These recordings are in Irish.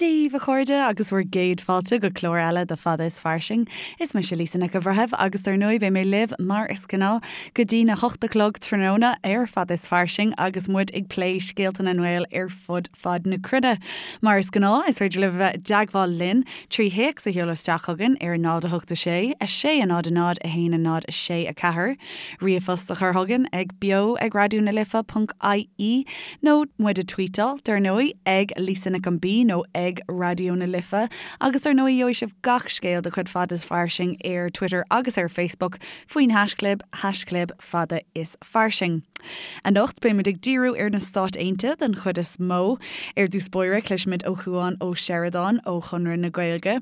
Dia daoibh, a chairde, agus bhur gcéad fáilte go clár eile de Fada is Fairsing. Is mise Lisa Nic an Bhreithimh agus dar ndóigh beidh mé libh, mar is gnáth, go dtí na hocht a chlog tráthnóna ar Fada is Fairsing agus muid ag plé scéalta na nGael ar fud fad na cruinne. Mar is gnáth, is féidir libh a bheith i dteagmháil linn trí théacs a sheoladh isteach chugainn ar 0 8 6 6 0 0 1 0 6 4, ríomhphost a chur chugainn ag beo ag raidió na life ponc ie nó muid a tweetáil, dar ndóigh, ag Lisa Nic an B nó ag Raidió na Life agus dar ndóigh gheobhaidh sibh gach scéal de chuid Fada is Fairsing ar Twitter agus ar Facebook faoin haischlib, haischlib Fada is Fairsing. Anocht beimid ag díriú ar na Stáit Aontaithe den chuid is mó. Ar dtús báire cloisfimid ó Chuan Ó Seireadáin ó Chonradh na Gaeilge,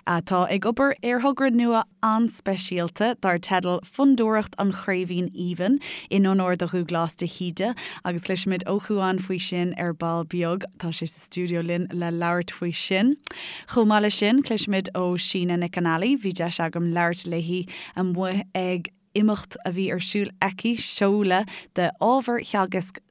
atá ag obair ar thogra nua an-speisialta dar teideal Fondúireacht an Chraoibhín Aoibhinn, in onóir do Dhúglás de hÍde, agus cloisfimid ó Chuan faoi sin ar ball beag. Tá sé sa stiúideo linn le labhairt faoi sin. Chomh maith leis sin, cloisfimid ó Síne Nic an Ailí, bhí deis agam labhairt léi amuigh ag imeacht a bhí ar siúl aici, seoladh de ábhar theagasc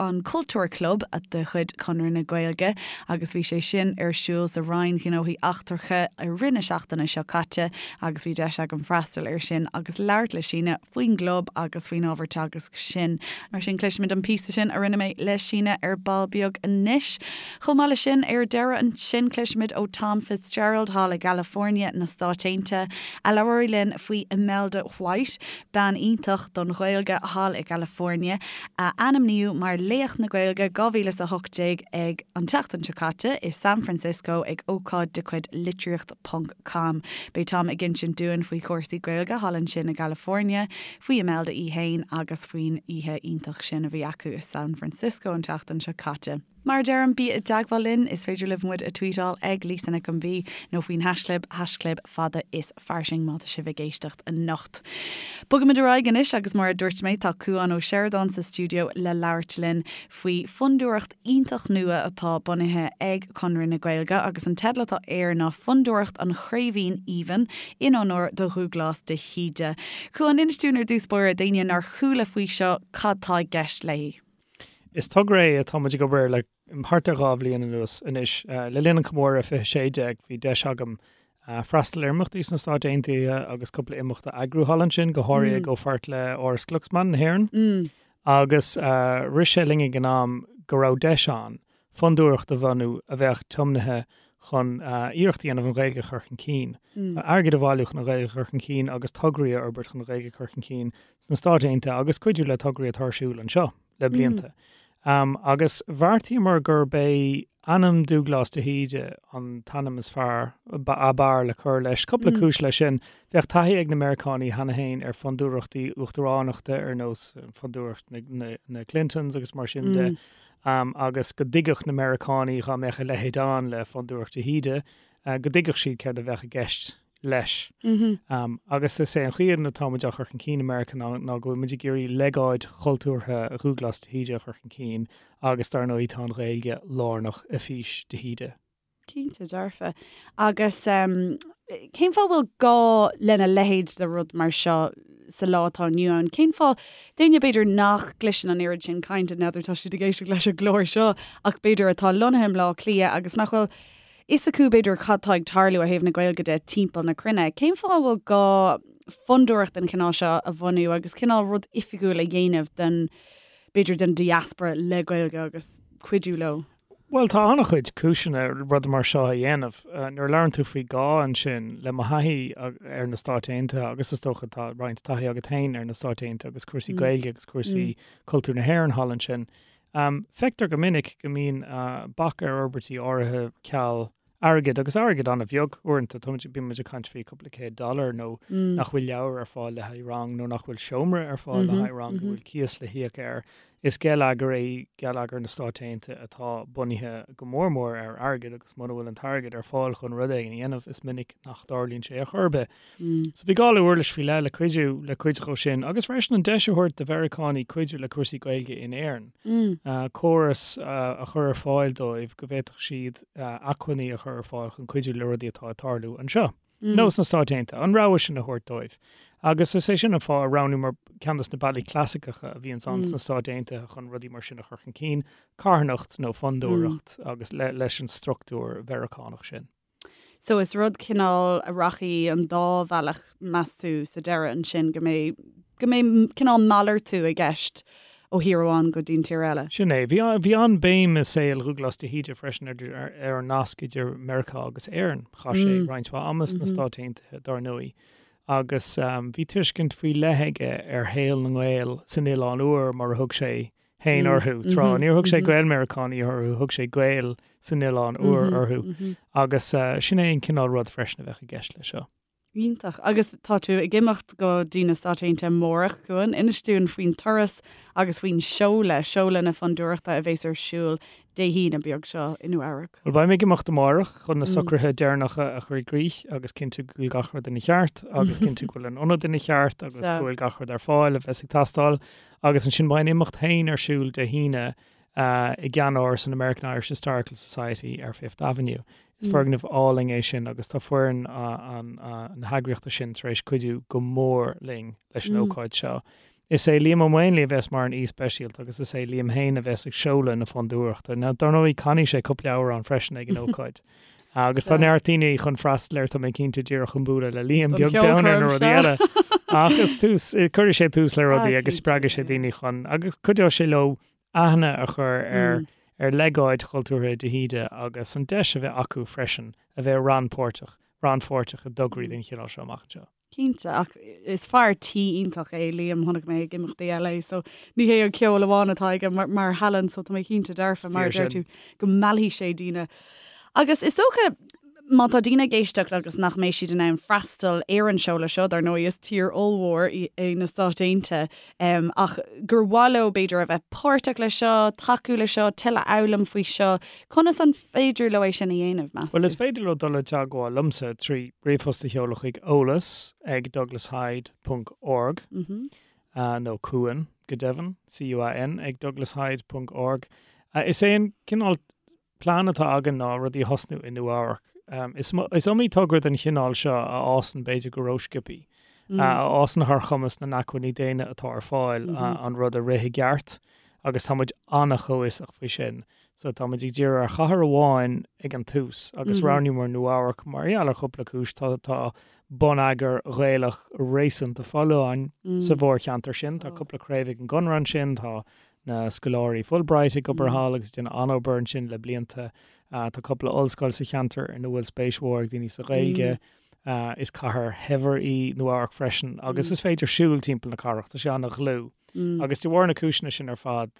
an Cultúr Club de chuid Chonradh na Gaeilge agus bhí sé sin ar siúl sa Roinn Ghnóthaí Eachtracha i rith na seachtaine seo caite agus bhí deis agam freastal air sin agus labhairt le Síne faoin gclub agus faoin ábhar teagaisc sin. Mar sin cloisfimid an píosa sin a rinne mé le Síne ar ball beag anois. Chomh maith leis sin, ar deireadh ansin cloisfimid ó Tom Fitzgerald thall i gCalifornia na Stáit Aontaithe, a labhróidh linn faoi Imelda White, bean iontach don Ghaeilge thall i gCalifornia, a ainmníodh mar Laoch na Gaeilge 2018 ag an tseachtain seo caite i San Francisco ag ócáid de chuid Litríocht Ponc Com. Beidh Tom ag insint dúinn faoi chúrsaí Gaeilge thall ansin i gCalifornia, faoi Imelda í fhéin agus faoin oíche iontach sin a bhí acu i San Francisco an tseachtain seo caite. Mar a deirim, bí i dteagmháil linn, is féidir libh muid a tweetáil ag Lisa Nic an B nó faoin haischlib, haischlib fada is fairsing má tá sibh ag éisteacht anocht. Bogaimid ar aghaidh anois agus mar a dúirt mé tá Cuan Ó Seireadáin sa stiúideo le labhairt linn faoi fondúireacht iontach nua atá bunaithe ag Conradh na Gaeilge agus an teideal atá air ná Fondúireacht an Chraoibhín Aoibhinn in onóir do Dhúglás de hÍde. Cuan, inis dúinn ar dtús báire, d'éinne nár chuala faoi seo, cad tá i gceist léi? Is togra é atá muid ag obair air le thart ar 2 bhliain anuas anois. Le linn an chomóradh 2016 bhí deis agam freastal ar imeachtaí sna Stáit Aontaithe agus cúpla imeacht a eagrú thall ansin, go háirithe i gcomhpháirt le Áras Glucksman na hÉireann. Agus rith sé linn ag an am go raibh deis ann fondúireacht a bhunú a bheadh tiomnaithe chun iarracht a dhéanamh an Ghaeilge a chur chun cinn, airgead a bhailiú chun an Ghaeilge a chur chun cinn agus tograí a fhorbairt chun an Ghaeilge a chur chun cinn sna Stáit Aontaithe agus cuidiú le tograí atá ar siúl anseo le blianta. Agus bheartaíomar gurb é ainm Dúglás de hÍde an t-ainm is fearr, ab fhearr le cur leis. Cúpla cúis leis sin. Bheadh taithí ag na Meiriceánaigh cheana féin ar fondúireachtaí uachtaránachta ar nós fondúireacht na Clintons agus mar sin de. Agus go dtuigfeadh na Meiriceánaigh dá mbeadh a leithéid ann le Fondúireacht de hÍde, go dtuigfeadh siad céard a bheadh i gceist leis. Agus is é an chaoi atá muid á chur chun cinn i Meiriceá ná go bhfuil muid ag iarraidh legáid chultúrtha Dhúglás de hÍde a chur chun cinn agus dar ndóigh tá an Ghaeilge lárnach i bhfís de hÍde. Cinnte dearfa. Agus cén fáth a bhfuil gá lena leithéid de rud mar seo sa lá atá inniu ann? Cén fáth, d'éinne b'fhéidir nach gcloiseann an oiread sin cainte, n'fheadar tá siad ag éisteacht leis an gclár seo, ach b'fhéidir atá lonnaithe i mBleá Cliath agus nach bhfuil fhios acu b'fhéidir cad tá ag tarlú ó thaobh na Gaeilge de timpeall na cruinne. Cén fáth a bhfuil gá fondúireacht den chineál seo a bhunú agus cineál rud oifigiúil a dhéanamh den, b'fhéidir den diaspora le Gaeilge agus cuidiú leo? Bhuel, tá an-chuid cúiseanna rud mar seo a dhéanamh. Nuair a labhrann tú faoi gá ansin, le mo thaithí ar na Stáit Aontaithe, agus is dócha tá roinnt taithí agat féin ar na Stáit Aontaithe agus cúrsaí Gaeilge agus cúrsaí cultúr na hÉireann thall ansin, feictear go minic go mbíonn bac ar fhorbairtí áirithe ceal airgid, agus airgead an-bheag uaireanta, táimid, bíonn muid ag caint faoi cúpla céad dollar nó nach bhfuil leabhair ar fáil le haghaidh rang nó nach bhfuil seomra ar fáil le haghaidh rang, go bhfuil cíos le híoc air. Is geilleagar é geilleagar na Stáit Aontaithe atá bunaithe go mór mór ar airgead agus muna bhfuil an t-airgead ar fáil chun rud éigin a dhéanamh, is minic nach dtarlaíonn sé ar chor ar bith. So bhí gá le uirlis faoi leith le cuidiú le cuid dhó sin agus freisin an deis a thabhairt do Mheiriceánaigh cuidiú le cúrsaí Gaeilge in Éirinn. Córas a chur ar fáil dóibh go bhféadfadh siad acmhainní a chur ar fáil chun cuidiú le rudaí atá ag tarlú anseo. nó sna Stáit Aontaithe, an rogha sin a thabhairt dóibh. Agus is é sin an fáth a roghnaíomar ceann de na bealaí clasaiceacha a bhíonns ann sna Stáit Aontaithe chun rudaí mar sin a chur chun cinn, carthanacht nó fondúireacht agus leis an struchtúr Mheiriceánach sin. So is rud cineál a rachaidh an dá bhealach meas tú sa deireadh ansin go mbeidh go mbeidh cineál malartú i gceist ó thír amháin go dtí an tír eile. Sin é. Bhí bhí an-bhéim i saol Dhúghlás de hÍde freisin ar ar an nasc idir Meiriceá agus Éirinn. Chaith sé roinnt mhaith ama sna Stáit Aontaithe dar ndóigh agus bhí tuiscint faoi leith aige ar shaol na nGael san Oileán Úr mar a thug sé féin orthu tráth. Níor thug sé Gael-Meiriceánaigh orthu, thug sé Gaeil san Oileán Úr orthu. Agus sin é an cineál rud freisin a bheadh i gceist leis seo. Iontach. Agus tá tú ag imeacht go dtí na Stáit Aontaithe amárach, Cuan. Inis dúinn faoin turas agus faoin seoladh, seoladh na fondúireachta a bheas ar siúl Dé hAoine beag seo i Nua Eabhrac. Bhuel, beidh mé ag imeacht amárach chun na socruithe deireanacha a chur i gcrích agus cinntiú go bhfuil gach rud ina cheart agus cinntiú go bhfuil an ionad ina cheart agus go bhfuil gach rud ar fáil a bheas ag teastáil. Agus ansin beidh an imeacht féin ar siúl Dé hAoine i gceannáras an American Irish Historical Society ar Fifth Avenue. Is foirgneamh álainn é sin agus tá foireann na heagraíochta sin tar éis cuidiú go mór linn leis an ócáid seo. Is é Liam Ó Maonlaí a bheas mar an aoi speisialta agus is é Liam féin a bheas ag seoladh na fondúireachta. Now, dar ndóigh, canfaidh sé cúpla amhrán freisin ag an ócáid. Agus tá neart daoine chun freastal air, tá mé cinnte, díreach chun bualadh le Liam, beag beann ar na rudaí eile. Ach is tús, cuirfidh sé tús le rudaí agus spreagfaidh sé daoine chun, agus cuideoidh sé leo aithne a chur ar ar legáid chultúrtha de hÍde agus an deis a bheith acu freisin a bheith rannpháirteach, rannpháirteach i dtograí den chineál seo amach anseo. Cinnte, ach is fear tí iontach é Liam, chonaic mé ag imeachtaí eile é, so ní hé an ceol amháin atá aige mar, mar thallann, so tá mé cinnte dearfa, mar a deir tú, go meallfaidh sé daoine. Agus is dócha, má tá daoine ag éisteacht agus nach mbeidh siad in ann freastal ar an seoladh seo, dar ndóigh is tír ollmhór é na Stáit Aontaithe, ach gur mhaith leo b'fhéidir a bheith páirteach leis seo, tacú leis seo, tuilleadh a fhoghlaim faoi seo, conas an féidir leo é sin a dhéanamh, meas tú? Bhuel, is féidir leo dul i dteagmháil liomsa trí ríomhphost a sheoladh chuig eolas ag douglashyde ponc org nó Cuan, go deimhin, C-U-A-N, ag douglashyde ponc org. Is é an cineál plean atá againn ná rudaí a thosnú i Nua Eabhrac. Is iomaí togra den chineál seo a fhásann b'fhéidir go rósciobtha, a fhásann thar chumas na n-acmhainní daonna atá ar fáil an rud a rith i gceart agus tá muid an-chomhfhiosach faoi sin. So tá muid ag díriú ar chathair amháin ag an tús agus roghnaíomar Nua Eabhrac mar gheall ar chúpla cúis. Tá tá bonneagar Ghaelach réasúnta folláin sa mhórcheantar sin, tá cúpla craobh ag an gConradh ansin, tá na scoláirí Fulbright ag obair thall agus ag déanamh an-obair ansin le blianta. Tá cúpla ollscoil sa cheantar ina bhfuil spéis mhór ag daoine sa Ghaeilge. Is cathair shaibhir í Nua Eabhrac freisin agus is féidir siúl timpeall na cathrach, tá sé an-dhlúth. Agus de bharr na cúiseanna sin ar fad,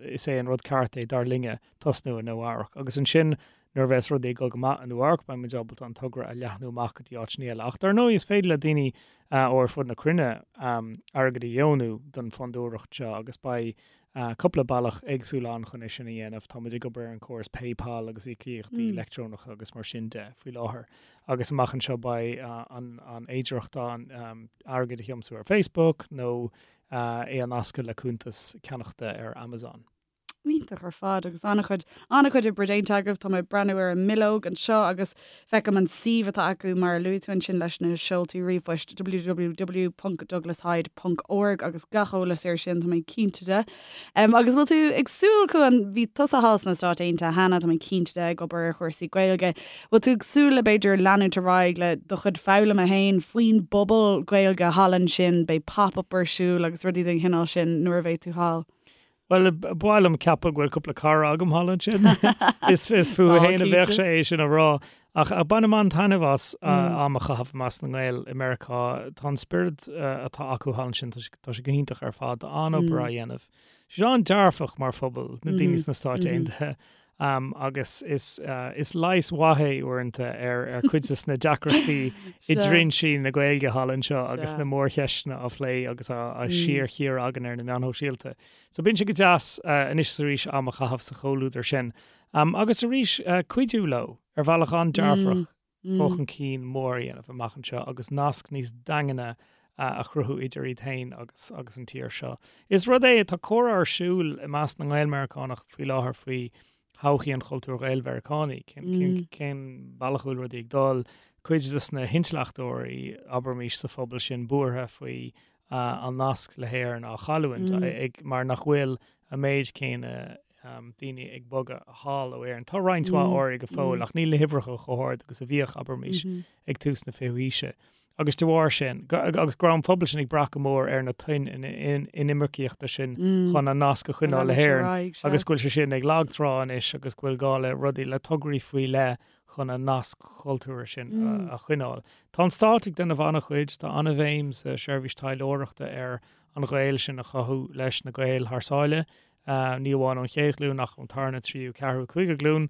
is é an rud ceart é, dar linne, tosnú i Nua Eabhrac. Agus ansin Nuair a bheas rudaí ag dul go maith i Nua Eabhrac, beidh muid ábalta an togra a leathnú amach go dtí áiteanna eile. Ach dar ndóigh, is féidir le daoine ó ar fud na cruinne airgead a dheonú don fondúireacht seo agus beidh cúpla bealach éagsúil ann chun é sin a dhéanamh. Tá muid ag obair ar an chóras PayPal agus íocaíochtaí leictreonacha agus mar sin de faoi láthair. Agus amach anseo beidh an fhéidearthacht ann airgead a thiomsú ar Facebook nó é a nascadh le cuntas ceannachta ar Amazon. Iontach ar fad agus an-chuid, an-chuid oibre déanta agaibh. Tá mé ag breathnú ar an mbileog anseo agus feicim an suíomh atá acu mar a luaigh tú ansin leis na seoltaí ríomhphoist www.douglashyde ponc org agus gach eolas air sin tá mé cinnte de. Um, agus bhfuil tú ag súil Cuan, bhí tusa thall sna Stáit Aontaithe cheana, tá mé cinnte de ag obair ar chúrsaí Gaeilge. Bhfuil tú ag súil le b'fhéidir leanúint ar aghaidh le do chuid foghlama féin faoin bpobal Gaeilge thall ansin, beidh pop-up ar siúl agus rudaí den chineál sin nuair a bheidh tú thall? Bhuel, ba mhaith liom ceapadh go bhfuil cúpla cara agam thall ansin. Is is fúthu féin a bheadh sé é sin a rá. Ach bainim an-taitneamh as am a chaitheamh i measc na nGael i Meiriceá. Tá an spiorad atá acu thall ansin, tá sé go hiontach ar fad. Tá an-obair á dhéanamh. Tá siad an-dearfach mar phobal, na daoine sna Stáit Aontaithe. Agus is is leigheas mhaith é uaireanta ar ar cuid de na deacrachtaí i dtrinsí na Gaeilge thall anseo agus na mórcheisteanna á phlé agus á síorchíoradh againn ar na meáin shóisialta. So bíonn sé go deas anois is arís am a chaitheamh sa chomhluadar sin. Agus arís cuidiú leo ar bhealach an-dearfach dul chun cinn mór a dhéanamh amach anseo agus nasc níos daingne a chruthú idir iad féin agus agus an tír seo. Is rud é, tá comhrá ar siúl i measc na nGael-Meiriceánach faoi láthair faoi. thodhchaí an chultúir Ghael-Mheiriceánaigh, cén, cén bealach a bhfuil rudaí ag dul, cuid de na hintleachtóirí, abraimis, sa phobal sin buartha faoi an nasc le hÉirinn á chailliúint ag, mar nach bhfuil an méid céanna daoine ag bogadh thall ó Éirinn. Tá roinnt mhaith áirithe go fóill ach níl na huimhreacha chomh hard agus a bhíodh, abraimis, ag tús na fichiú haoise. Agus de bharr sin, agus go raibh an pobal sin ag brath go mór ar na toinn inimircíochta sin chun an nasc a choinneáil le hÉirinn agus go bhfuil sé sin ag lagtrá anois agus go bhfuil gá le rudaí, le tograí faoi leith chun an nasc chultúrtha sin a choinneáil. Tá an stát ag déanamh an-chuid, tá an-bhéim sa seirbhís taidhleoireachta ar an ghaol sin a chothú leis na Gaeil thar sáile, ní amháin ón chéad ghlúin ach ón tarna, tríú, ceathrú, cúigiú glúin.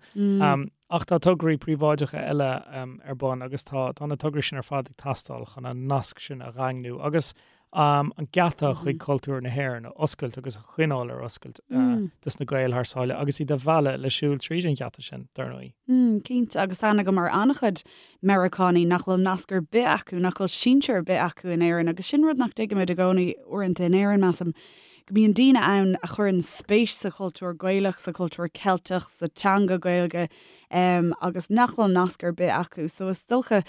Ach tá tograí príobháideacha eile ar bun agus tá tá na tograí sin ar fad ag teastáil chun an nasc sin a dhaingniú agus an geata chuig cultúr na hÉireann a oscailt agus a choinneáil ar oscailt dos na Gaeil thar sáile agus iad a mhealladh le siúl tríd an gheata sin, dar ndóigh. Cinnte, agus tá aithne agam ar an-chuid Meiriceánaigh nach bhfuil nasc ar bith acu, nach bhfuil sinsear ar bith acu in Éirinn agus sin rud nach dtuigimid i gcónaí uaireanta in Éirinn, measaim, go mbíonn daoine ann a chuireann spéis sa chultúr Gaelach, sa chultúr Ceilteach, sa teanga Gaeilge agus nach bhfuil nasc ar bith acu. So is dócha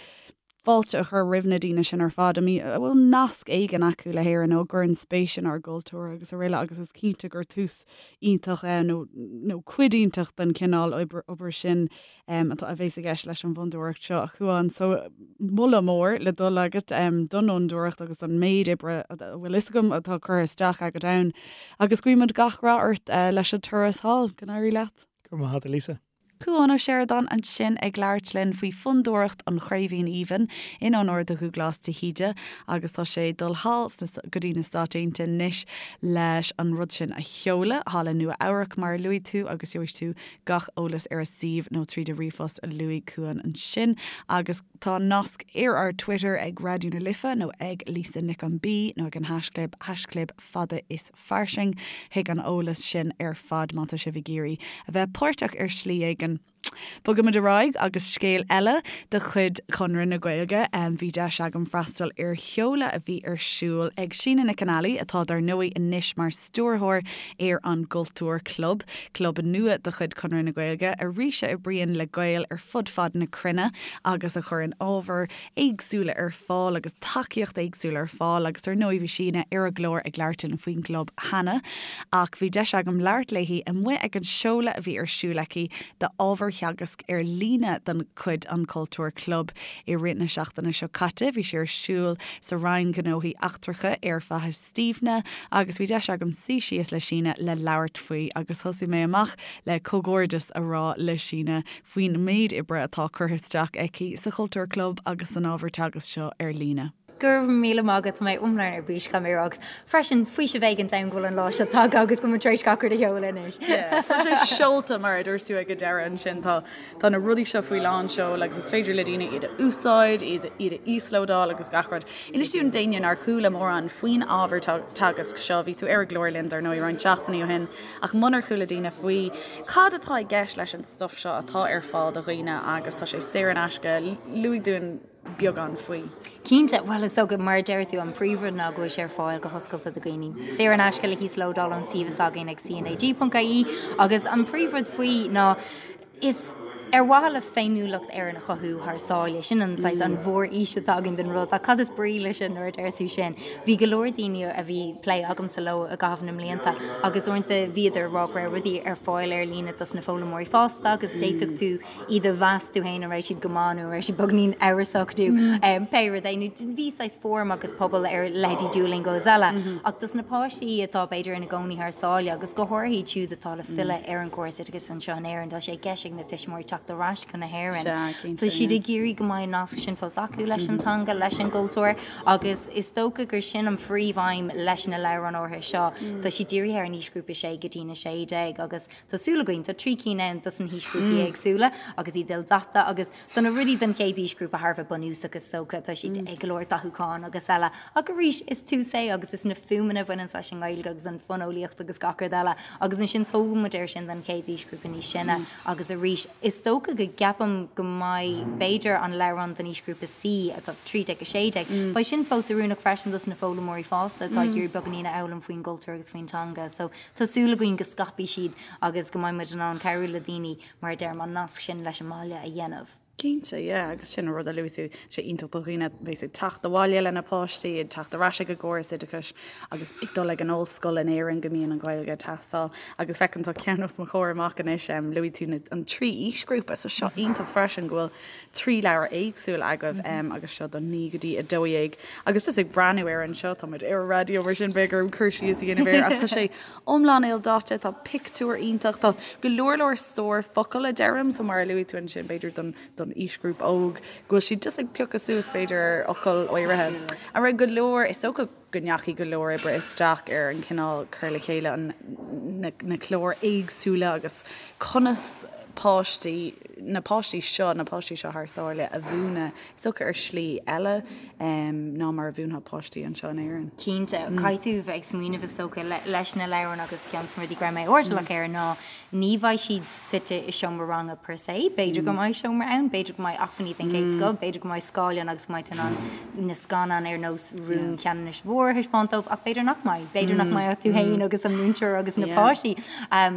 fáilte a chur roimh na daoine sin ar fad a bhfuil nasc éigin acu le hÉirinn nó a gcuireann spéis inár gcultúr agus araile agus is cinnte gur tús iontach é nó nó cuid iontach den chineál obair sin atá a bhéas i gceist leis an bhfondúireacht seo a Chuáin. So moladh mór le dul agat don fhondúireacht agus don méid oibre a bhfuil fhios agam atá curtha isteach agat ann agus guímid gach rath ort leis an turas thall. Go n-éirí leat. Go raibh maith agat a Lisa. Cuán Ó Seireadáin ansin ag labhairt linn faoi Fondúireacht an Chraoibhín Aoibhinn in onóir do Dhúghlás de hÍde agus tá sé ag dul thall go dtí na Stáit Aontaithe anois leis an rud sin a sheoladh thall i Nua Eabhrac mar a luaigh tú agus gheobhaidh tú gach eolas ar a suíomh nó tríd an ríomhphost a luaigh Cuán ansin agus tá nasc ar ár Twitter ag Raidió na Life nó ag Lisa Nic an B nó ag an haischlib, haischlib fada is fairsing chuig an eolas sin ar fad má tá sibh ag iarraidh a bheith páirteach ar shlí éigin. Bogaimid ar aghaidh agus scéal eile de chuid Chonradh na Gaeilge. Bhí deis agam freastal ar sheoladh a bhí ar siúl ag Síne Nic an Ailí, atá dar ndóigh anois mar stiúrthóir ar an gCultúr Club, club nua de chuid Chonradh na Gaeilge, arís a oibríonn le Gaeil ar fud fad na cruinne agus a chuireann ábhar éagsúla ar fáil agus tacaíocht éagsúla ar fáil agus ar ndóigh bhí Síne ar an gclár ag labhairt linn faoin gclub cheana ach bhí deis agam labhairt léi amuigh ag an seoladh a bhí ar siúl aici d'ábhar theagasc ar líne de chuid an Cultúr Club i rith na seachtaine seo caite. Bhí sé ar siúl sa Roinn Gnóthaí Eachtracha ar Faiche Stiabhna agus bhí deis agam suí síos le Síne le labhairt faoi agus thosaigh mé amach le comhghairdeas a rá le Síne faoin méid oibre atá curtha isteach aici sa Chultúr Club agus san ábhar teagaisc seo ar líne. Go raibh míle maith agat, tá mé iomlán ar bís caithfidh mé a rá agus freisin faoiseamh éigin dom go bhfuil an lá seo tagtha agus go bhfuil muid tar éis gach rud a sheoladh anois. Yeah, tá sé seolta mar a dúirt tú ag an deireadh ansin, tá tá na rudaí seo faoi lán seoil agus is féidir le daoine iad a úsáid, iad iad a íoslódáil agus gach rud. Inis dúinn d'éinne nár chuala mórán faoin ábhar teagaisc seo, bhí tú ar an gclár linn dar ndóigh roinnt seachtainí ó shin ach munar chuala daoine faoi, cad atá i gceist leis an stuif seo atá ar fáil do dhaoine agus tá sé saor in aisce, luaigh dúinn beagán faoi. Cinnte, bhuel is dócha, mar a deir tú, an príomhrud ná go bhfuil sé ar fáil go hoscailte do dhaoine. Saor in aisce le híoslódáil ón suíomh s'againn ag cnag.ie agus an príomhrud faoi ná is ar mhaithe le féiniúlacht Éireann a chothú thar sáile, sin an saghas an mhórfhís atá againn don rud. Ach cad is brí leis sin nuair a deir tú sin? Bhí go leor daoine a bhí plé agamsa leo i gcaitheamh na mblianta agus uaireanta bhíodar ag rá go raibh rudaí ar fáil ar líne dos na foghlaimeoirí fásta agus d'fhéadfadh tú iad a mheas tú féin an raibh siad go maith nó an raibh siad beagnín amhrasach nó pé rud é. Nó bhí saghas fóram agus pobal ar leithéidí Duolingo is eile. Ach dos na páistí atá b'fhéidir ina gcónaí thar sáile agus go háirithe iad siúd atá le filleadh ar an gcóras oideachais anseo in Éirinn, tá sé i gceist ag na tuismitheoirí teacht ar ais chun na hÉireann. Tá siad ag iarraidh go mbeidh an nasc sin fós acu leis an teanga, leis an gcultúr. Agus is dócha gur sin an phríomhaidhm leis na leabhráin áirithe seo. Tá siad dírithe ar an aoisghrúpa 6 go dtí na 16 agus tá súil againn, tá 3 cinn ann dos na haoisghrúpaí éagsúla agus iad ildaite agus tá na rudaí don chéad aoisghrúpa thar a bheith bunúsach is dócha, tá siad ag go leor dathúcháin agus eile. Ach arís, is tús é agus is na fuaimeanna a bhaineanns leis an nGaeilge agus an fóineolaíocht agus gach rud eile agus ansin tógann muid air sin don chéad aoisghrúpa níos sine agus arís, is dócha. dócha go gceapaim go mbeidh, b'fhéidir, an leabhrán don aoisghrúpa C, atá 13-16, beidh sin fós oiriúnach freisin dos na foghlaimeoirí fásta atá ag iarraidh beagáinín a fhoghlaim faoin gcultúr agus faoin teanga. So tá súil againn go scaipfidh siad agus go mbeidh muid in ann cabhrú le daoine, mar a deirim, an nasc sin leis an mbaile a dhéanamh. Cinnte, yeah, agus sin an rud a luaigh tú, tá sé iontach do dhaoine a bheas ag teacht abhaile lena bpáistí, ag teacht ar ais ag an gcóras oideachais agus ag dul ag an ollscoil in Éirinn go mbíonn an Ghaeilge ag teastáil. Agus feicim tá ceann os mo chomhair amach anois, luaigh tú na, an trí aoisghrúpa, so seo iontach freisin go bhfuil 3 leabhar éagsúil agaibh agus seo don 9 go dtí 12 agus just ag breathnú air anseo, tá muid ar an raidió mar sin beidh orm cur síos a dhéanamh air ach tá sé iomlán ildaite, tá pictiúir iontach, tá go leor leor stór focal a deirim, so mar a luaigh tú ansin b'fhéidir don don aoisghrúpa óg go bhfuil siad just ag piocadh suas b'fhéidir ar fhocail áirithe. An raibh go leor, is dócha go ndeachaigh go leor oibre isteach ar an chineál cur le chéile an na na cláir éagsúla agus conas páistí, na páistí seo, na páistí seo thar sáile a mhúineadh, is dócha ar shlí eile ná mar a mhúinfeá páistí anseo in Éirinn. Cinnte, caithfidh tú bheith ag smaoineamh is dócha leis na leabhráin agus ceann de na rudaí go raibh mé airdeallach air ná ní bheidh siad suite i seomra ranga per se, b'fhéidir go mbeidh seomra ann, b'fhéidir go mbeidh acmhainní den chéad scoth, b'fhéidir go mbeidh scáileán agus go mbeidh tú in ann na scannáin ar nós Rún Cheanannais Mhóir a thaispeáint dóibh ach b'fhéidir nach mbeidh, b'fhéidir nach mbeidh ach tú féin agus an múinteoir agus na páistí.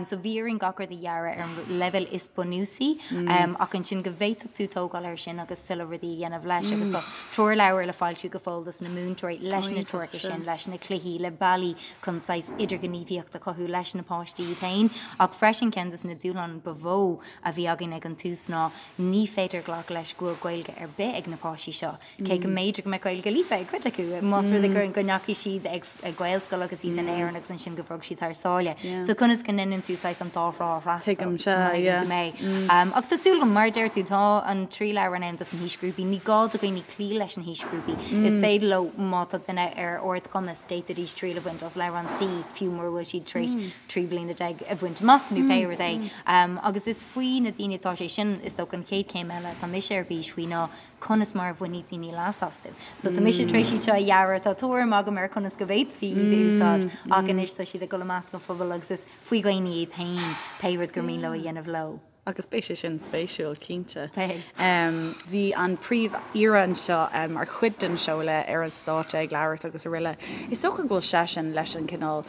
So bhí orainn gach rud a dhearadh ar an leibhéal is bunúsaí ach ansin go bhféadfadh tú tógáil air sin agus tuilleadh rudaí a dhéanamh leis agus tá treoirleabhar le foilsiú go fóill dos na múinteoirí leis na treoracha sin, leis na cluichí, le bealaí chun saghas idirghníomhaíocht a chothú leis na páistí iad féin. Ach freisin ceann des na dúshláin ba mhó a bhí againn ag an tús ná ní féidir glacadh leis go bhfuil Gaeilge ar bith ag na páistí seo. Cé go mb'fhéidir go mbeadh Gaeilge líofa ag cuid acu, más rud é go ndeachaigh siad ag Gaelscoil agus iad in Éirinn agus ansin go bhog siad thar sáile. So conas go ndéanann tú saghas an dá thrá a fhreastal? Tuigim, sea, yeah. Ach tá súil agam, mar a deir tú, tá an trí leabhrán ann dos na haoisghrúpaí. Ní gá do dhaoine cloí leis na haoisghrúpaí. Is féidir leo, má tá duine ar ardchumas, d'fhéadfaidís triail a bhaint as leabhrán C fiú mura bhfuil siad tar éis 13 bliana a bhaint amach nó pé rud é. Agus is faoi na daoine atá sé sin, is dócha an chéad chéim eile atá mise ar bís faoi ná conas mar a bhainfidh daoine leas astu. So tá mise tar éis iad seo a dhearadh, tá tuairim agam ar conas go bhféadfaí iad a úsáid ach anois tá siad ag dul i measc an phobail agus is faoi dhaoine iad féin pé rud gur mian leo a dhéanamh leo. Agus beidh sé sin spéisiúil, cinnte. Beidh. Bhí an Príomh-Aoire anseo mar chuid den seoladh ar an stáitse ag labhairt agus araile. Is dócha go bhfuil seisean leis an cineál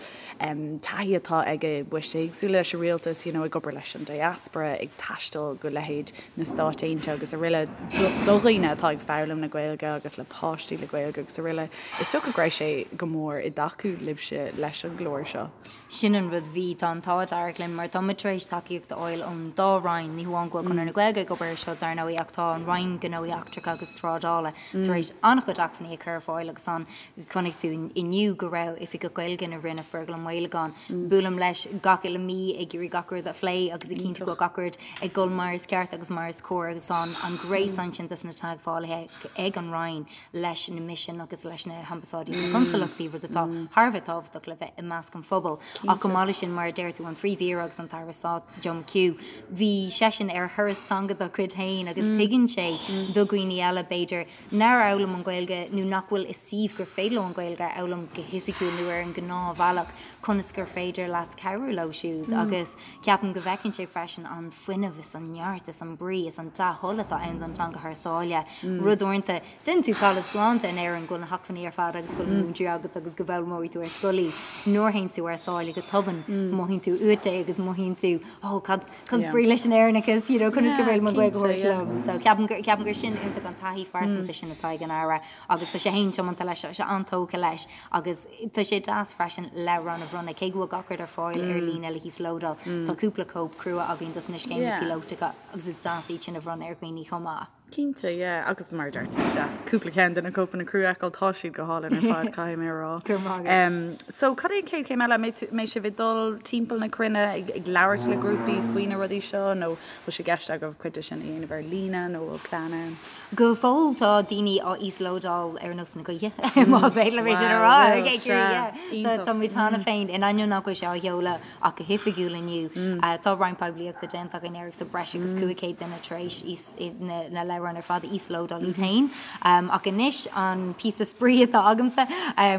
taithí atá aige i bpoist éagsúla leis an rialtas, you know, ag obair leis an diaspora, ag taisteal go leithéid na Stáit Aontaithe agus araile, do dhaoine atá ag foghlaim na Gaeilge agus le páistí le Gaeilge agus araile. Is dócha go raibh sé go mór i dtacú libhse leis an gclár seo. Sin an rud, bhí, tá an t-ádh dearg linn mar tá muid tar éis tacaíocht a fháil ón dá Roinn, ní hamháin go bhfuil Conradh na Gaeilge ag obair ar seo dar ndóigh ach tá an Roinn Gnóthaí Eachtracha agus Trádála tar éis an-chuid acmhainní a chur ar fáil agus an Chonaic tú inniu go raibh Oifigeach Gaeilge na Roinne, Fergal Ó Maolagáin. Buailim leis gach uile mí ag iarraidh gach rud a phlé agus ag cinntiú go bhfuil gach rud ag dul mar is ceart agus mar is cóir agus tá an gréasán sin dos na teagmhálaithe ag an Roinn leis na misin agus leis na hambasáidí is na consalachtaí, rud atá thar a bheith tábhachtach le bheith i measc an phobail. Ach chomh maith leis sin, mar a deir tú, an Phríomh-Aoire agus an tAire Stáit, Joe McHugh, bhí seisean ar thuras teanga dá chuid féin agus tuigeann sé do dhaoine eile, b'fhéidir, nár fhoghlaim an Ghaeilge nó nach bhfuil i suíomh gur féidir leo an Ghaeilge a fhoghlaim go hoifigiúil nó ar an ngnáthbhealach, conas gur féidir leat cabhrú leo siúd agus ceapaim go bhfeiceann sé freisin an fuinneamh is an neart is an brí is an dea-thoil atá ann don teanga thar sáile. Rud uaireanta, déanann tú talamh slán de in Éirinn go bhfuil na hacmhainní ar fad agus go bhfuil na múinteoirí agat agus go bhfoghlaimeoidh tú ar scoil í. Nuair a théann tú thar sáile go tobann, mothaíonn tú uait é agus mothaíonn tú, oh, cad, Cad is brí leis an Éireannachas, you know, conas gur féidir liom an Ghaeilge a thabhairt liom. So ceapaim gur, ceapaim gur sin iontach an taithí phearsanta sin atá ag an Aire agus tá sé féin tiomanta leis, tá sé an-tógtha leis agus tá sé deas freisin leabhrán a bhronnadh, cé go bhfuil gach rud ar fáil ar líne le híoslódáil, tá cúpla cóip crua againn dos na scéimeanna píolótacha agus is deas iad sin a bhronnadh ar dhaoine chomh maith. Cinnte, yeah. Agus mar a deir tú, is deas cúpla ceann de na cóipeanna crua a fheiceáil, tá siad go hálainn ar fad, caithfidh mé a rá. Go raibh maith agat. So, cad é an chéad chéim eile? An mbeidh sibh ag dul timpeall na cruinne ag ag labhairt le grúpaí faoi na rudaí seo nó bhfuil sé i gceist agaibh cuid de sin a dhéanamh ar líne nó bhfuil plean ann? Go fóill tá daoine á íoslódáil ar nós na gaoithe, más féidir liom é sin a rá. Wow, bhfuil, sea, iontach. Tá muid cheana féin, in ainneoin nach bhfuil sé á sheoladh ach go hoifigiúil inniu, tá roinnt poiblíochta déanta againn air agus tá breis agus 500 duine tar éis na. leabhráin ar fad a íoslódáil iad féin. Ach anois an píosa spraoi atá agamsa,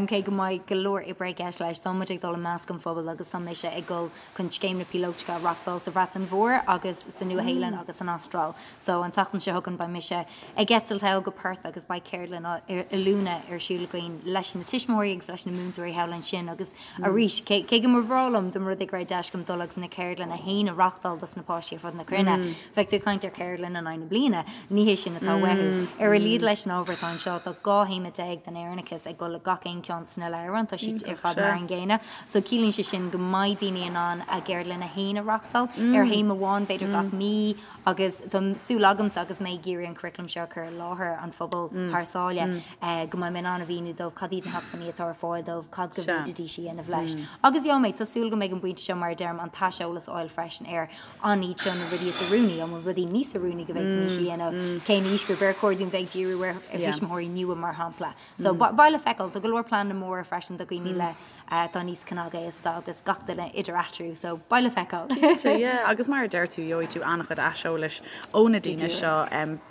cé go mbeidh go leor oibre i gceist leis, tá muid ag dul i measc an phobail agus tá mise ag dul chun scéimeanna píolótacha a reachtáil sa Bhreatain Mhór agus sa Nua-Shéalainn agus san Astráil. So an tseachtain seo chugainn beidh mise ag eitilt thall go Perth agus beidh ceardlann oiliúna ar siúl againn leis na tuismitheoirí agus leis na múinteoirí thall ansin agus arís cé go mba bhreá liom dá mba rud é go raibh deis agam dul agus na ceardlanna féin a reachtáil dos na páistí ar fud na cruinne, bheadh tú ag caint ar cheardlann in aghaidh na bliana, ní hé sin atá uathu. Ar a laghad leis an ábhar atá anseo tá 12 théama den Éireannachas ag dul le gach aon ceann de na leabhráin, tá siad ar fad mar an gcéanna. So ciallaíonn sé sin go mbeidh daoine in ann a gceardlanna féin a reachtáil ar théama amháin b'fhéidir gach mí agus tá súil agamsa agus mé ag iarraidh an curriculum seo a chur i láthair an phobail thar sáile go mbeidh mé in ann a mhíniú dóibh cad iad na hacmhainní atá ar fáil dóibh, cad go bhféadfaidís a dhéanamh leis. Agus gheobhaidh mé, tá súil go mbeidh an pointe seo mar a deirim an t-aiseolas a fháil freisin ar an iad seo na rudaí is oiriúnaí, an bhfuil rudaí níos oiriúnaí go bhféadfaimis a dhéanamh, cén aoisghrúpa ar chóir dúinn bheith ag díriú ar thuismitheoirí nua mar shampla. So beidh le feiceáil. Tá go leor pleananna móra freisin do dhaoine le atá níos cnagaosta agus gach duine idir eatarthu. So beidh le feiceáil. Cinnte, yeah. Agus mar a deir tú, gheobhaidh tú an-chuid aiseolais ó na daoine seo.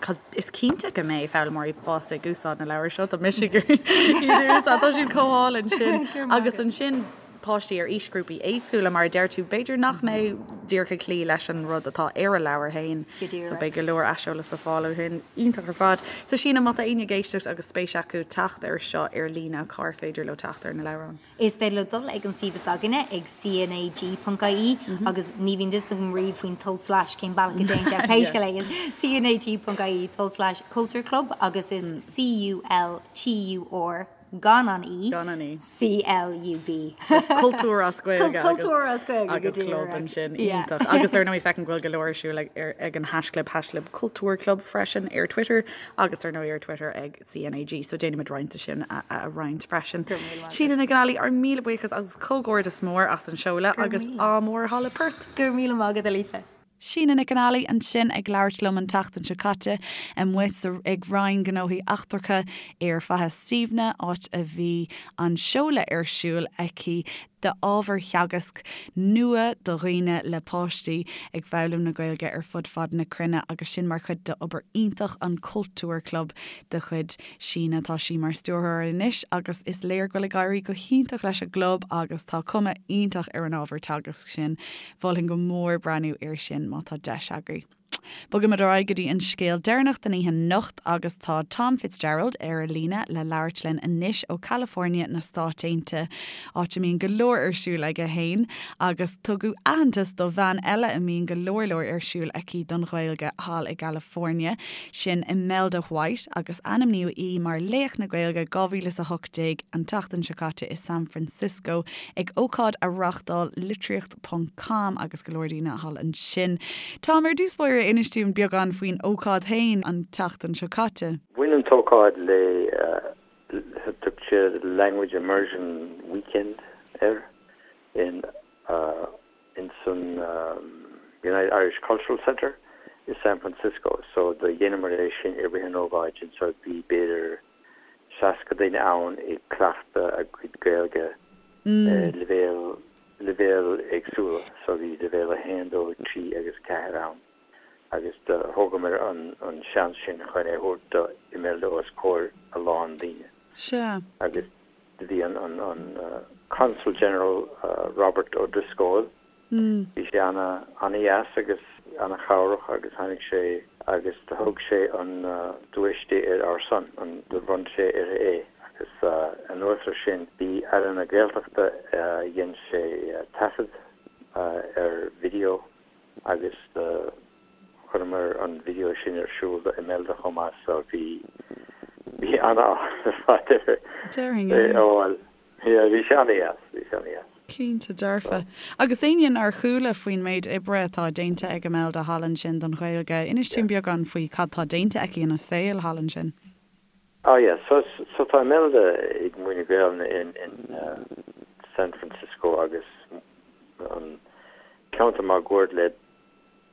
Cos is cinnte go mbeidh foghlaimeoirí fásta ag úsáid na leabhar seo. Tá mise ag iarraidh iad a úsáid. Tá siad chomh hálainn sin. Agus ansin páistí ar aoisghrúpaí éagsúla, mar a deir tú, b'fhéidir nach mbeidh díreach ag cloí leis an rud atá ar a leabhar féin. So beidh go leor aiseolas le fáil ó shin. Iontach ar fad. So Síne, má tá éinne ag éisteacht agus spéis acu teacht air seo ar líne, cár féidir leo teacht ar na leabhráin? Is féidir leo dul ag an suíomh is againne ag cnag.ie agus ní bhíonn fhios agam riamh faoin tulslais cén bealach a dtéann sé ach pé scéal é is cnag.ie tulslais cultúr club agus is C-U-L-T-U-R gan an E, Gan an E. C-L-U-B. So cultúr as Gaeilge agus Cultúr as Gaeilge go agus club díreach. ansin. Yeah. Iontach. Agus dar ndóigh feicim go bhfuil go leor ar siúl ag ar ag an haischlib haischlib cultúr club freisin ar Twitter agus dar ndóigh ar Twitter ag CNAG. So déanfaimid roinnt de sin a a roinnt freisin. Go raibh míle maith agat. Síne Nic an Ailí, ár míle buíochas agus comhghairdeas mór as an seoladh Go raibh agus míle. ádh mór thall i Perth. Go raibh míle maith agat, a Lisa. Síne Nic an Ailí ansin ag labhairt liom an tseachtain seo caite, amuigh sa ag Roinn Gnóthaí Eachtracha ar Faiche Stiabhna, áit a bhí an seoladh ar siúl aici d'ábhar teagaisc nua do dhaoine le páistí ag foghlaim na Gaeilge ar fud fad na cruinne agus sin mar chuid d'obair iontach an Cultúr Club de chuid Síne. Tá sí mar stiúrthóir anois agus is léir go bhfuil ag éirí go hiontach leis an gclub agus tá cuma iontach ar an ábhar teagaisc sin. Mholfainn go mór breathnú air sin má tá deis agaibh. Bogaimid ar aghaidh go dtí an scéal deireanach den oíche anocht agus tá Tom Fitzgerald ar an líne le labhairt linn anois ó California na Stáit Aontaithe, áit a mbíonn go leor ar siúl aige fhéin agus tugadh aitheantas do bhean eile a mbíonn go leor leor ar siúl aici don Ghaeilge thall i gCalifornia, sin Imelda White agus ainmníodh í mar Laoch na Gaeilge 2018 an tseachtain seo caite i San Francisco ag ócáid a reáchtáil Litríocht ponc com agus go leor daoine thall ansin. Tom, ar dtús báire, inis dúinn beagán faoin ócáid féin an tseachtain seo caite. Bhain an t-ócáid le, thug siad Language Immersion Weekend air in ins an United Irish Cultural Center i San Francisco. So do dheineamar é sin i rith an ócáid sin so bhí b'fhéidir 60 duine ann ag cleachtadh a gcuid Gaeilge ar leibhéal leibhéil éagsúla. So bhí leibhéal 1, 2, 3 agus 4 ann agus do thógamar an an seans sin chun é thabhairt do Imelda os comhair a lán daoine. Sea. Agus do bhí an an an Consul General Robert O'Driscoll Bhí sé ana, ana-dheas agus ana-chabhrach agus tháinig sé agus do thug sé an duais di ar ár son, an, do bhronn sé uirthi é agus anuas ar sin bhí Aire na Gaeltachta, dhein sé taifead ar video agus do chuireamar an video sin ar siúl do Imelda chomh maith so bhí, bhí ana-áthas ar fad uirthi Déarfainn, é yeah. a fháil. Yeah, bhí sé ana-dheas, bhí sé ana-dheas. Cinnte dearfa. Agus éinne nár chuala faoin méid oibre atá déanta ag Imelda thall ansin don Ghaeilge, inis dúinn beagán faoi cad tá déanta aici ina saol thall ansin. Oh yeah, so so tá Imelda ag múineadh Gaelainne in in San Francisco agus an ceantar máguaird le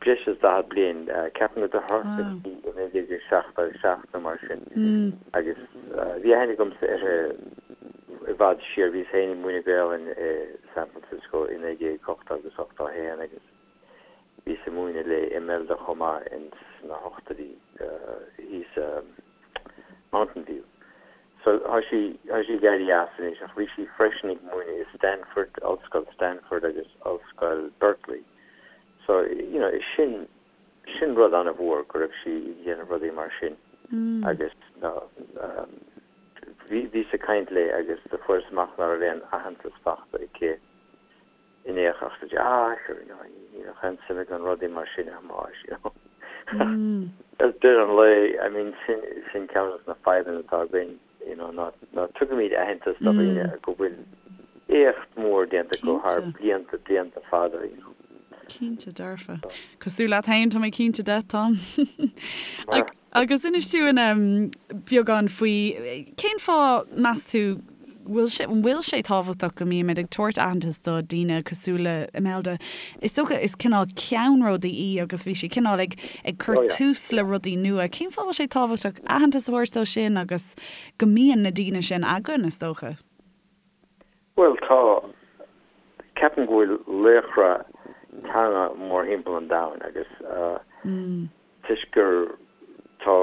breis is 40 bliain, ceapaim gur thosaigh sí i 1977 nó mar sin, agus bhí aithne agamsa uirthi i bhfad siar, bhíos féin ag múineadh Gaelainn i San Francisco i 1980 agus 81 agus bhíos ag múineadh le Imelda chomh maith ins na hochtóidí. Mountain View. So tá sí tá sí ag éirí as anois ach bhí sí freisin ag múineadh i Stanford, Ollscoil Stanford agus Ollscoil Berkeley. So you know is sin sin rud an-mhór go raibh sí ag déanamh rudaí mar sin agus bhí bhíos ag caint léi agus do fuaireas amach ná raibh aon aitheantas fachta aici in aon chor ach ah sure you know ní bheadh aon suim agam i rudaí mar sin a Thomáis you know. Ar deireadh an lae I mean sin sin ceann de na fadhbanna atá againn you know ná ná tugaimid aitheantas do dhaoine go bhfuil éacht mór déanta acu thar blianta blianta fada you know. Cinnte dearfa. Cosúil leat féin tá mé cinnte de Tom. Agus inis dúinn beagán faoi cén fáth, meas tú, bhfuil sé, an bhfuil sé tábhachtach go mbímid ag tabhairt aitheantas do daoine cosúil le Imelda? Is dócha is cineál ceannródaí í agus bhí sí cineál ag ag cur tús le rudaí nua. Cén fáth a bhfuil sé tábhachtach aitheantas a thabhairt dó sin agus go mbíonn na daoine sin againn, is dócha? Bhuel, tá. Ceapaim go bhfuil laochra teanga mórthimpeall an domhain agus toisc gur tá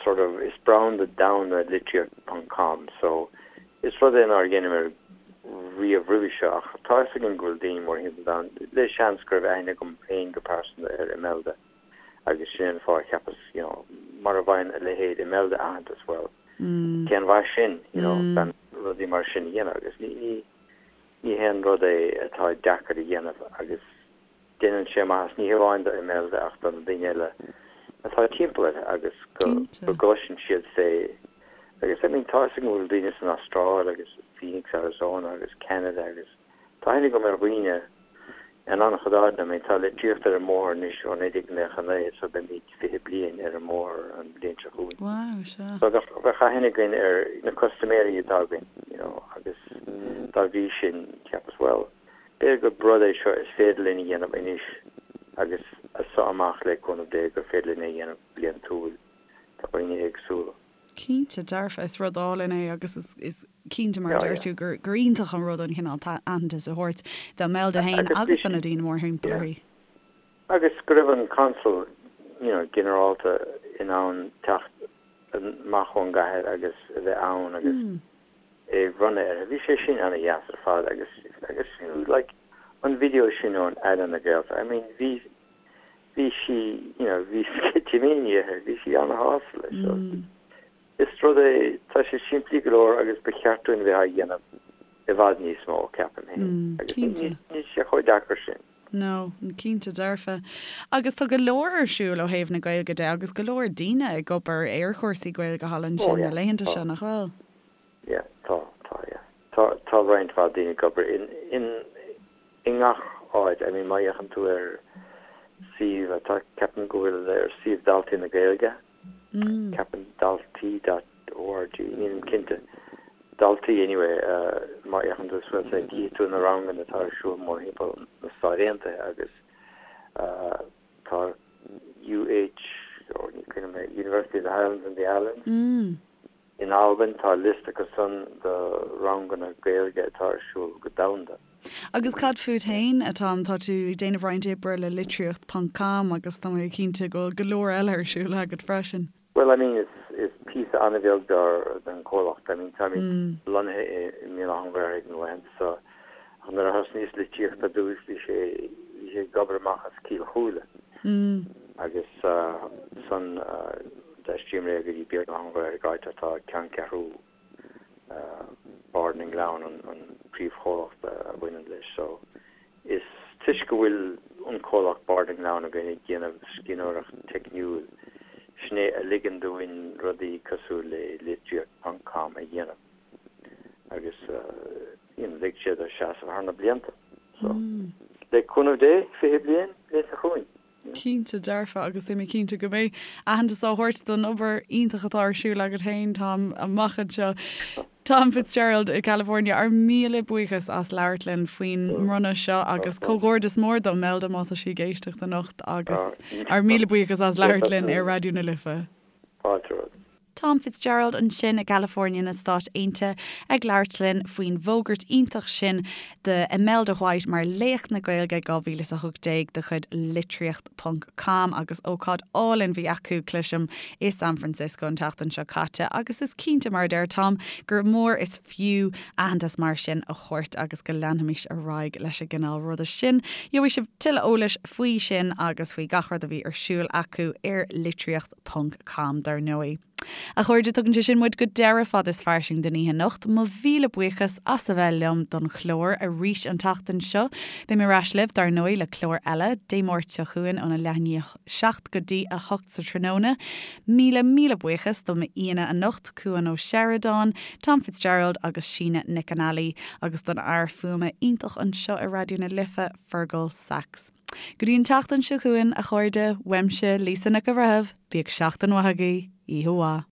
sort of is branda domhanda litríocht ponc com so is rud é nár dheineamar riamh roimhe seo ach tá fhios againn go bhfuil daoine mórthimpeall an domhain le seans go raibh aithne agam féin go pearsanta ar Imelda agus sin an fáth a cheapas you know mara bhfaigheann a leithéid Imelda aitheantas bhuel cén mhaith sin you know gan rudaí mar sin a dhéanamh agus ní ní ní haon rud é atá deacair a dhéanamh agus Déanann sé maitheas ní hamháin do Imelda ach do na daoine eile atá timpeall uirthi agus go gcloiseann siad fé agus I mean tá fhios agam go bhfuil daoine san Astráil agus Phoenix, Arizona agus Ceanada agus tá aithne agam ar dhaoine in an-chuid áiteanna. I mean tá litríocht ar an mbóthar anois ó 1999 so beimid 20 bliain ar an mbóthar an bhliain seo chugainn. Wow, sea. So bheadh, bheadh aithne againn ar na custaiméirí atá againn you know agus dá bhrí sin cheapas well B'fhéidir gur rud é seo is féidir linn a dhéanamh anois agus as seo amach le cúnamh Dé gur féidir linn é a dhéanamh bliantúil do dhaoine éagsúla. Cinnte, dearfa, is rud álainn é agus is cinnte mar a deir tú gur iontach an rud an cineál aitheantais a thabhairt d'Imelda féin agus do na daoine mórthimpeall uirthi. Agus go raibh an Consal you know ginearálta in ann teacht amach ón gcathair agus a bheith ann agus é a bhronnadh uirthi. Bhí sé sin ana-dheas ar fad agus agus fiú like an video sin ón Aire na Gaeltachta, I mean bhí bhí sí you know bhí sceitimíní uirthi, bhí sí ana-shásta leis so is rud é, tá sé simplí go leor agus ba cheart dúinn a bheith á dhéanamh i bhfad níos mó, ceapaim féin. Agus níl sé chomh deacair sin. No, cinnte dearfa. Agus tá go leor ar siúl ó thaobh na Gaeilge de agus go leor daoine ag obair ar chúrsaí Gaeilge thall ansin na laethanta seo, nach bhfuil? Yeah, tá, tá, yeah. Tá, tá roinnt mhaith daoine ag obair in, in, i ngach áit. I mean, má fhéachann tú ar suíomh atá, ceapaim go bhfuil ar suíomh Daltaí na Gaeilge, Ceapaim daltaí dot org, nílim cinnte. Daltaí anyway, má fhéachann tú suas air cífidh tú na ranganna atá ar siúl mórthimpeall na Stáit Aontaithe agus tá UH, oh ní cuimhin liom, University of the Highlands and the Islands in Albain, tá liosta acu san de ranganna Gaeilge atá ar siúl go domhanda. Agus cad fút féin, a Tom? Tá tú ag déanamh roinnt oibre le litríocht ponc com agus tá mé cinnte go bhfuil go leor eile ar siúl agat freisin. Bhuel, I mean, is, is píosa an-bheag dár, den chomhlacht. I mean, táimid lonnaithe i, i mBéal Átha an Ghaorthaidh na laethanta seo ach nuair a thosnaíos litríocht ar dtús bhí sé, bhí sé ag obair amach as Cill Chúile agus ansan d'aistríomar é go dtí Béal Átha an Ghaorthaidh áit atá ceanncheathrú Bard na nGleann an príomhchomhlacht a bhaineann leis. So is toisc go bhfuil an comhlacht Bard na nGleann againn ag déanamh scríbhneoireacht teicniúil, sin é a ligeann dúinn rudaí cosúil le litríocht ponc com a dhéanamh agus you know lig sé dó seasamh thar na blianta. So le cúnamh Dé, 20 bliain, bliain seo chugainn. Cinnte dearfa, agus tá mé cinnte go mbeidh aitheantas á thabhairt don obair iontach atá ar siúl agat féin, Tom, amach anseo. Tom Fitzgerald i California, ár míle buíochas as labhairt linn faoin mbronnadh seo agus comhghairdeas mór d'Imelda má tá sí ag éisteacht anocht agus ár míle buíochas as labhairt linn ar Raidió na Life. Fáilte romhat. Tom Fitzgerald ansin i gCalifornia na Stát Aontaithe ag labhairt linn faoin bhfógairt iontach sin do Imelda White mar Laoch na Gaeilge 2018 de chuid Litríocht ponc com agus ócáid álainn bhí acu, cloisim, i San Francisco an tseachtain seo caite agus is cinnte, mar a deir Tom, gur mór is fiú aitheantas mar sin a thabhairt agus go leanfaimis ar aghaidh leis an gcineál ruda sin. Gheobhaidh sibh tuilleadh eolais faoi sin agus faoi gach rud a bhí ar siúl acu ar litríocht ponc com dar ndóigh. A chairde, tugann sé sin muid go deireadh Fad is Fairsing don oíche anocht. Mo mhíle buíochas as a bheith liom don chlár arís an tseachtain seo. Beidh mé ar ais libh, dar ndóigh, le clár eile, Dé Máirt seo chugainn óna leath i ndiaidh a 7 go dtí a 8 sa tráthnóna. Míle, míle buíochas do m'aíonna anocht, Cuan Ó Seireadáin, Tom Fitzgerald agus Síne Nic an Ailí, agus don fhear fuaime iontach anseo i Raidió na Life, Fergal Sachs. Go dtí an tseachtain seo chugainn, a chairde, uaimse, Lisa Nic an Bhreithimh, bíodh seachtain mhaith agaibh, oíche mhaith.